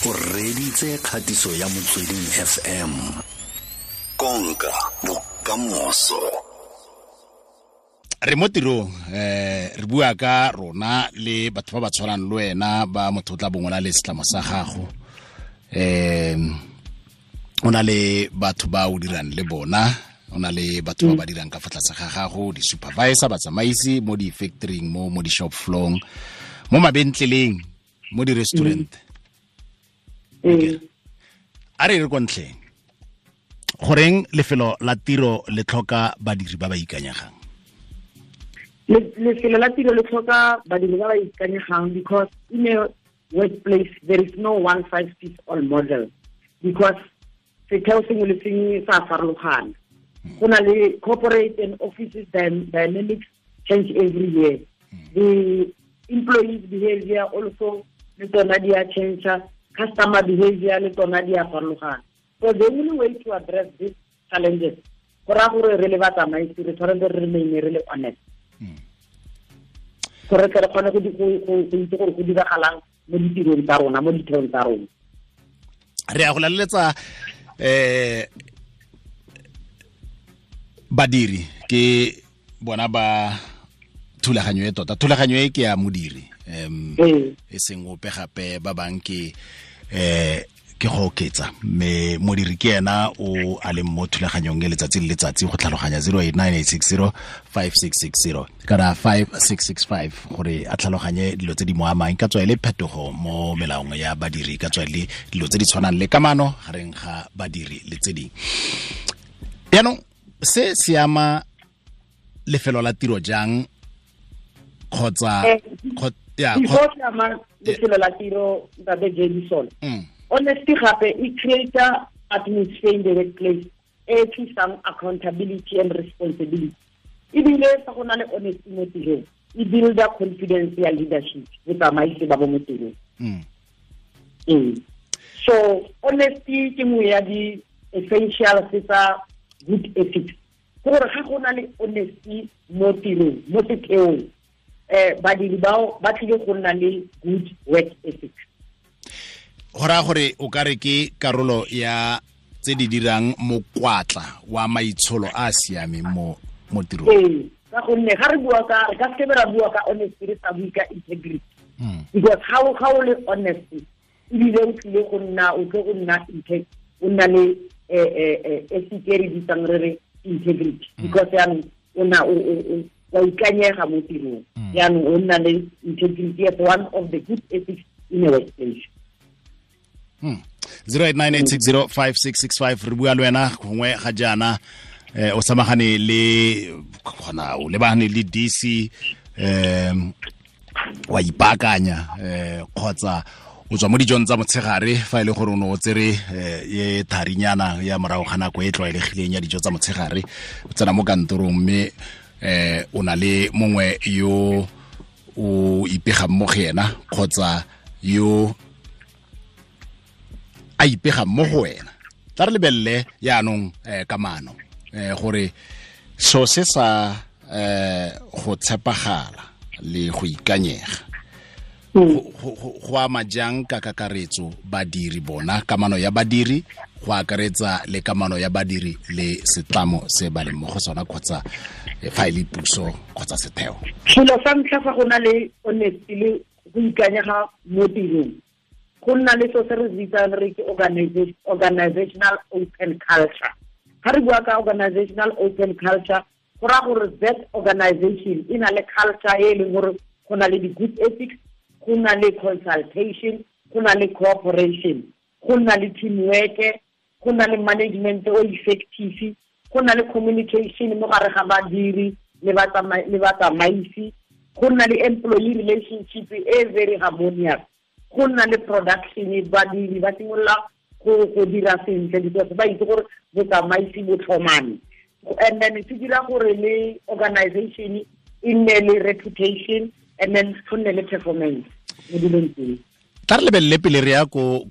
O reditse kgatiso ya Motsweding FM. Konka bokamoso. Re mo tirong, re bua ka rona le batho ba ba tshwanang le wena, ba motho o tla bongwe le setlamo sa gago. O na le batho ba o dirang le bona, o na le batho ba ba dirang ka fa tlase ga gago, di-supervisor, batsamaisi mo di-factoring, mo di-shop floor, mo mabentleleng, mo di-restaurant. A re re kwa ntlheng, goreng lefelo la tiro le tlhoka badiri ba ba ikanyegang? Lefelo la tiro le tlhoka badiri ba ba ikanyegang because in a workplace there is no one size fits all model, because setheo sengwe le sengwe sa farologana. Go na le corporate and offices dynamics change every year. The employees behavior also le tsona di a change, customer behavior le tsona di a farologana. So the only way to address these challenges, go raya gore re le batsamaisi re tshwanetse re remain re le honest, gore re kgone go itse gore go diragalang mo ditirong tsa rona, mo ditheong tsa rona. Re ya go laleletsa badiri ke bona ba thulaganyo e tota. Thulaganyo e ke ya modiri, e seng ope gape, ba bang ke ke go oketsa, mme modiri ke ena o a leng mo thulaganyong e letsatsi le letsatsi go tlhaloganya 0898605660 kana 5665 gore a tlhaloganye dilo tse di mo amang, ka tswa e le phetogo mo melaong ya badiri, ka tswa e le dilo tse di tshwanang le kamano gareng ga badiri le tse dingwe. Jaanong se se ama lefelo la tiro jang, kgotsa ya before se ama lefelo la tiro, ntate Jason, honesty gape e create atmosphere in the workplace e tlisang accountability and responsibility. Ebile fa go na le honesty mo tirong, e builda confidence ya leadership, botsamaisi ba bo mo tirong. So honesty ke nngwe ya di-essentials tsa good ethics. Ke gore ga go na le honesty mo tirong, mo setheong, badiri bao ba tlile go nna le good work ethics. Go raya gore o ka re ke karolo ya tse di dirang mokwatla wa maitsholo a a siameng mo tirong. Ee, ka gonne ga re bua ka, re ka seke ra bua ka honesty re sa bue ka integrity, because ga o le honest ebile o tlile go nna, o tle go nna o nna le ethic e re bitsang re re integrity, because yaanong o na wa ikanyega mo tirong, yaanong o nna le integrity as one of the good ethics in a workplace. 0898605665, re bua le wena gongwe ga jaana, o samagane le gona, o lebagane le DC, wa ipaakanya, kgotsa o tswa mo dijong tsa motshegare, fa e le gore o ne o tsere ye tharinyana ya morago ga nako e tlwaelegileng ya dijo tsa motshegare, o tsena mo kantorong mme o na le mongwe yo o ipegang mo go ena, kgotsa yo a ipegang mo go wena. Tla re lebelele yaanong kamano, gore so se sa go tshepagala le go ikanyega go ama jang ka kakaretso badiri bona, kamano ya badiri go akaretsa le kamano ya badiri le setlamo se ba leng mo go sona, kgotsa fa e le puso kgotsa setheo. Selo sa ntlha, fa go na le honesty le go ikanyega mo tirong, go nna le so se re bitsang re ke organizational open culture. Ga re bua ka organizational open culture, go raya gore that organization e na le culture e leng gore go na le di-good ethics, go na le consultation, go na le cooperation, go na le teamwork, go na le management o effective, go na le communication mo gare ga badiri le batsamaisi, go na le employee relationship e very harmonious, go nna le production, badiri ba simolola go dira sentle because ba itse gore botsamaisi bo tlhomame. And then se dira gore le organization e nne le reputation, and then go nne le performance mo dilong tseo. Tla re lebelele pele re ya ko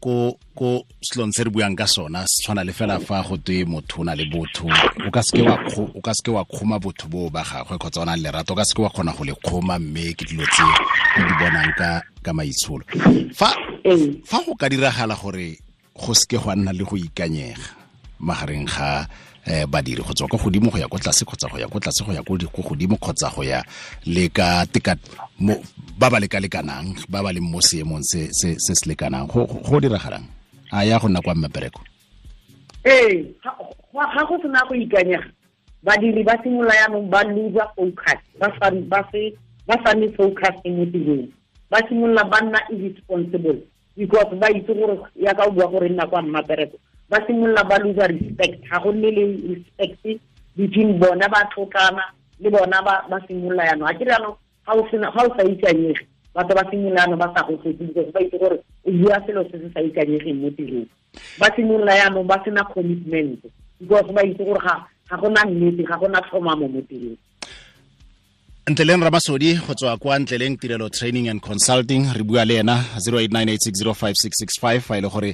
selong se re buang ka sona, se tshwana le fela fa go twe motho o na le botho, o ka seke wa kgoma botho boo ba gagwe kgotsa o na le lerato, o ka seke wa kgona go le kgoma, mme ke dilo tse o di bonang ka maitsholo. Fa go ka diragala gore go seke gwa nna le go ikanyega magareng ga badiri go tswa kwa godimo go ya kwa tlase kgotsa go ya kwa tlase go ya kwa godimo kgotsa go ya le ka teka ba ba lekalekanang, ba ba leng mo seemong se se se lekanang, go diragalang a ya go nna kwa mmepereko? Ee, ga go sena go ikanyega, badiri ba simolola yaanong ba lose focus, ba sa nne focus mo tirong, ba simolola ba nna irresponsible because ba itse gore ya ka o bua gore nna kwa mmapereko, ba simolola ba lose respect, ga go nne le respect between bona ba tlhotlana le bona ba simolola yaanong. A ke re yaanong ga o sa ikanyege, batho ba simolola yaanong ba sa go tlotse because ba itse gore o bua selo se se sa ikanyegeng mo tirong. Ba simolola yaanong ba sena commitment because ba itse gore ga gona nnete, ga gona tlhomamo mo tirong. Ntleleng Ramasodi go tswa kwa Ntleleng Tirelo Training and Consulting, re bua le ena 0898605665 fa ile gore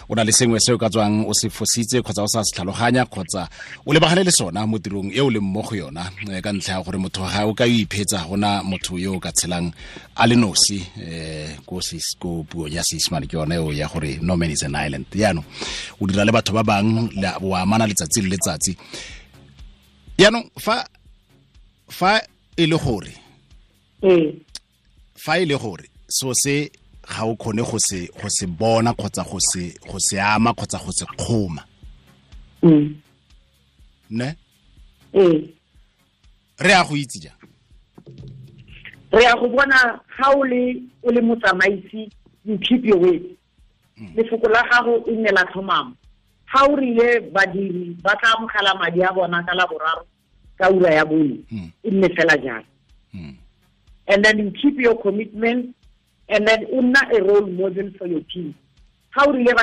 o na le sengwe se o ka tswang o se fositse kgotsa o sa se tlhaloganya kgotsa o lebagane le sona mo tirong e o leng mo go yona, ka ntlha ya gore motho ga o ka iphetsa, gona motho yo o ka tshelang a le nosi, ko puo ya Seesimane ke yone eo ya gore no man is an island. Jaanong o dira le batho ba bangwe, o amana letsatsi le letsatsi. Jaanong fa e le gore fa e le gore so se ga o kgone go se bona kgotsa go se ama kgotsa go se kgoma, ne re a go itse jang? Re a go bona ga o le motsamaisi, you keep your word. Lefoko la gago e nne la tlhomamo. Ga o rile badiri ba tla amogela madi a bona ka laboraro ka ura ya bone, e nne fela jalo. And then you keep your commitment, and then o nna a role model for your team. Ga o rile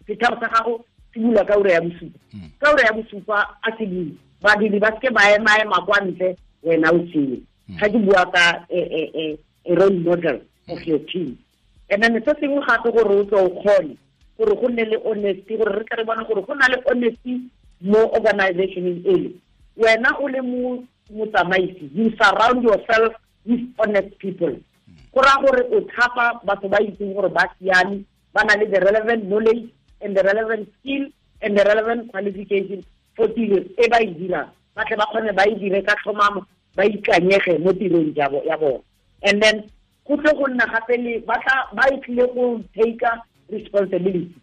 setheo sa gago se bula ka ura ya bosupa, ka ura ya bosupa a se bule, badiri ba seke ba ema kwa ntle, wena o tseye. Ga ke bua ka a role model of your team. And then se sengwe gape gore o tle o kgone gore go nne le honesty, gore re tle re bone gore go na le honesty mo organizationeng ele. Wena o le motsamaisi, you surround yourself with honest people. Go raya gore o thapa batho ba itseng gore ba siame, ba na le the relevant knowledge and the relevant skill and the relevant qualification for tiro e ba e dirang, ba tle ba kgone ba e dire ka tlhomamo, ba ikanyege mo tirong ya bona. And then go tle go nna gape le ba e tlile go take responsibility,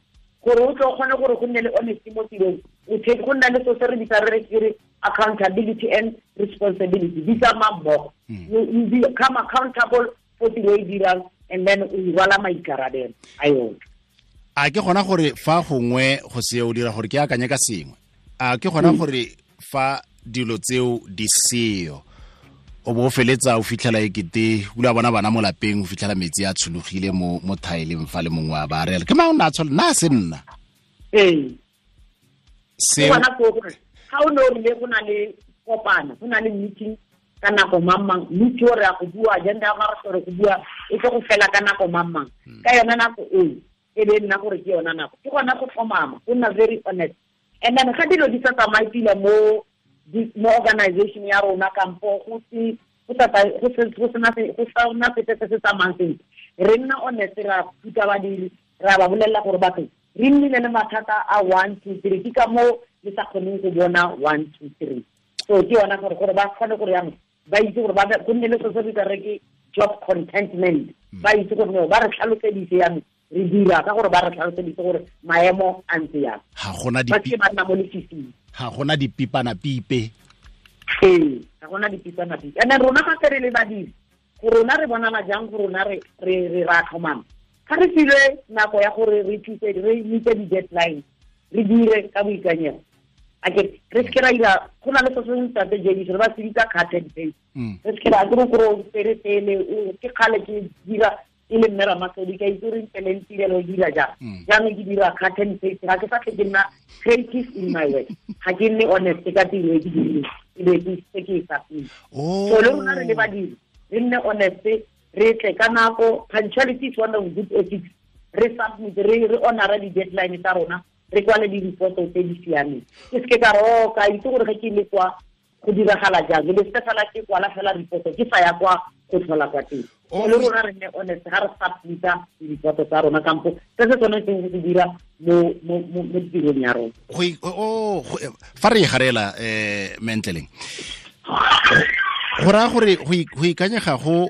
gore o tle o kgone gore go nne le honesty mo tirong, o take go nna le so se re bitsa re re accountability and responsibility di tsamaya mmogo. You become accountable for tiro e dirang, and then o rwala maikarabelo a yone. A ke gona gore fa gongwe go se o dira gore ke akanye ka sengwe, a ke gona gore fa dilo tseo di seo o bo feletsa o fitlhela ekete o la bona bana mo lapeng, o fitlhela metsi a tshologile mo thaeleng fa le mongwe a ba rela ke mang o ne a tshola nna se nna. Ee, se bona go gore ga o ne o rile go na le kopano, go na le meeting ka nako mang, meeting o re ya go bua agenda ya gore go bua e tlo go fela ka nako mang, ka yona nako eo e be nna gore ke yona nako, ke gona go tlhomama, go nna very honest. And then ga dilo di sa tsamaye pila mo organization ya rona kampo go sena sepe se se tsamayang sentle, re nna honest, ra thuta badiri, ra ba bolelela gore batho re nnile le mathata a 1 2 3, ke ka moo le sa kgoneng go bona 1 2 3. So ke yona gore ba kgone gore yang ba itse gore ba go nne le se se bitsa re ke job contentment, ba itse gore no ba re tlhaloseditse yang re dira ka gore ba re tlhaloseditse gore maemo a ntse yang, ga gona ba ke ba nna mo lefifing, ga gona dipipana pipe. Ee, ga gona dipipana pipe. And then rona ga re le badiri, go rona re bonala jang go rona re re ra tlhomama, ga re filwe nako ya gore re thuse re meet di-deadline, re dire ka boikanyego. A ke re se ra ira go na le se sengwe tate JD re ba se bitsa cut and paste, re se ra ke gore o pele ke kgale ke dira e le mme Ramasodi, ka itse re ntleleng tirelo dira jang, jaanong ke dira cut and paste, ga ke sa tle ke nna creative in my work, ga ke nne honest ka tiro e ke dirileng, e be ke se ke e sa pele. So le rona re le badiri re nne honest, Re tle ka nako. Punctuality is one of good ethics. Re submit, re honora di-deadline tsa rona, re kwale di-reporto tse di siameng. Ke seke ka re o ka itse gore ge ke le kwa go diragala jang, le se fela ke kwala fela reporto ke sa ya kwa go tlhola kwa teng. Le rona re nne honest ga re submita di-reporto tsa rona kampo se se tshwanetseng go se dira mo tirong ya rona. Fa re e garela mentleleng, go raya gore go ikanyega go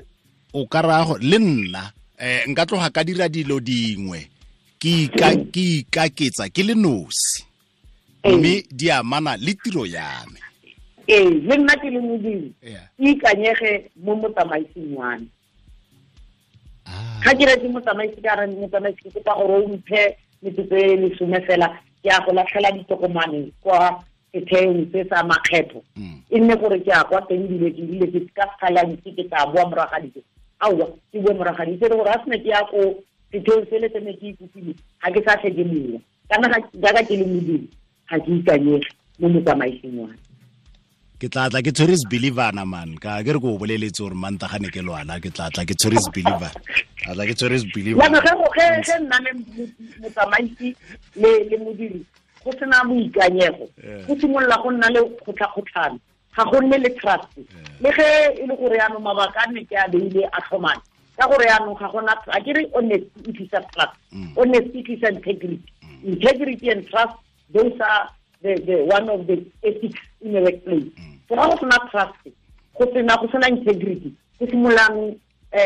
o ka raya gore le nna nka tloga ka dira dilo dingwe ke ikaketsa ke le nosi, mme di amana le tiro ya me. Ee, le nna ke le modiri ke ikanyege mo motsamaising wa me. Ga ke re ke motsamaisi, ka re motsamaisi ke kopa gore o mphe metsotso e 10 fela, ke a go latlhela ditokomane kwa setheong se sa makgetho. E nne gore ke a kwa teng dilo ke dile ke ka sekgalantsi ke tla boa morago ga dijo. Aowa, ke boa morago ga dijo gore a sene ke ya ko setheong sele se ne ke ikopile, ga ke sa tlhe ke mowa. Kana jaaka ke le modiri, ga ke ikanyege mo motsamaising wa me. Ke tla tla ke tshwere believer man, ka ke re go boleletse gore Mantaga ne ke lwana, ke tla tla ke tshwere believer. A tla ke tshwere believer. Ya ge nna le motsamaisi le modiri go sena boikanyego, go simolola go nna le kgotlha-kgotlhano, ga go nne le trust. Le ge e le gore yaanong mabaka a ne ke a beile a tlhomane, ka gore yaanong ga gona, a ke re honesty e tlisa trust, honesty e tlisa integrity. Integrity and trust, those are the one of the ethics in a workplace. So ga go sena trust, go sena integrity, go simololang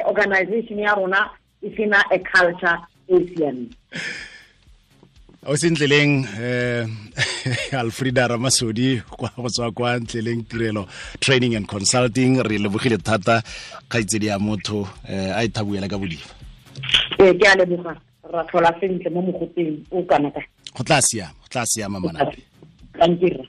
organization ya rona e sena a culture e siameng. O sentleleng Alfreda Ramasodi kwa go tswa kwa Ntleleng Tirelo Training and Consulting, re lebogile thata kgaitsedi ya motho a ithabuela ka bodifa. Ee, ke a leboga, ra tlhola sentle mo mogoteng o kana ka. Go tla siama, go tla siama manape. Thank you.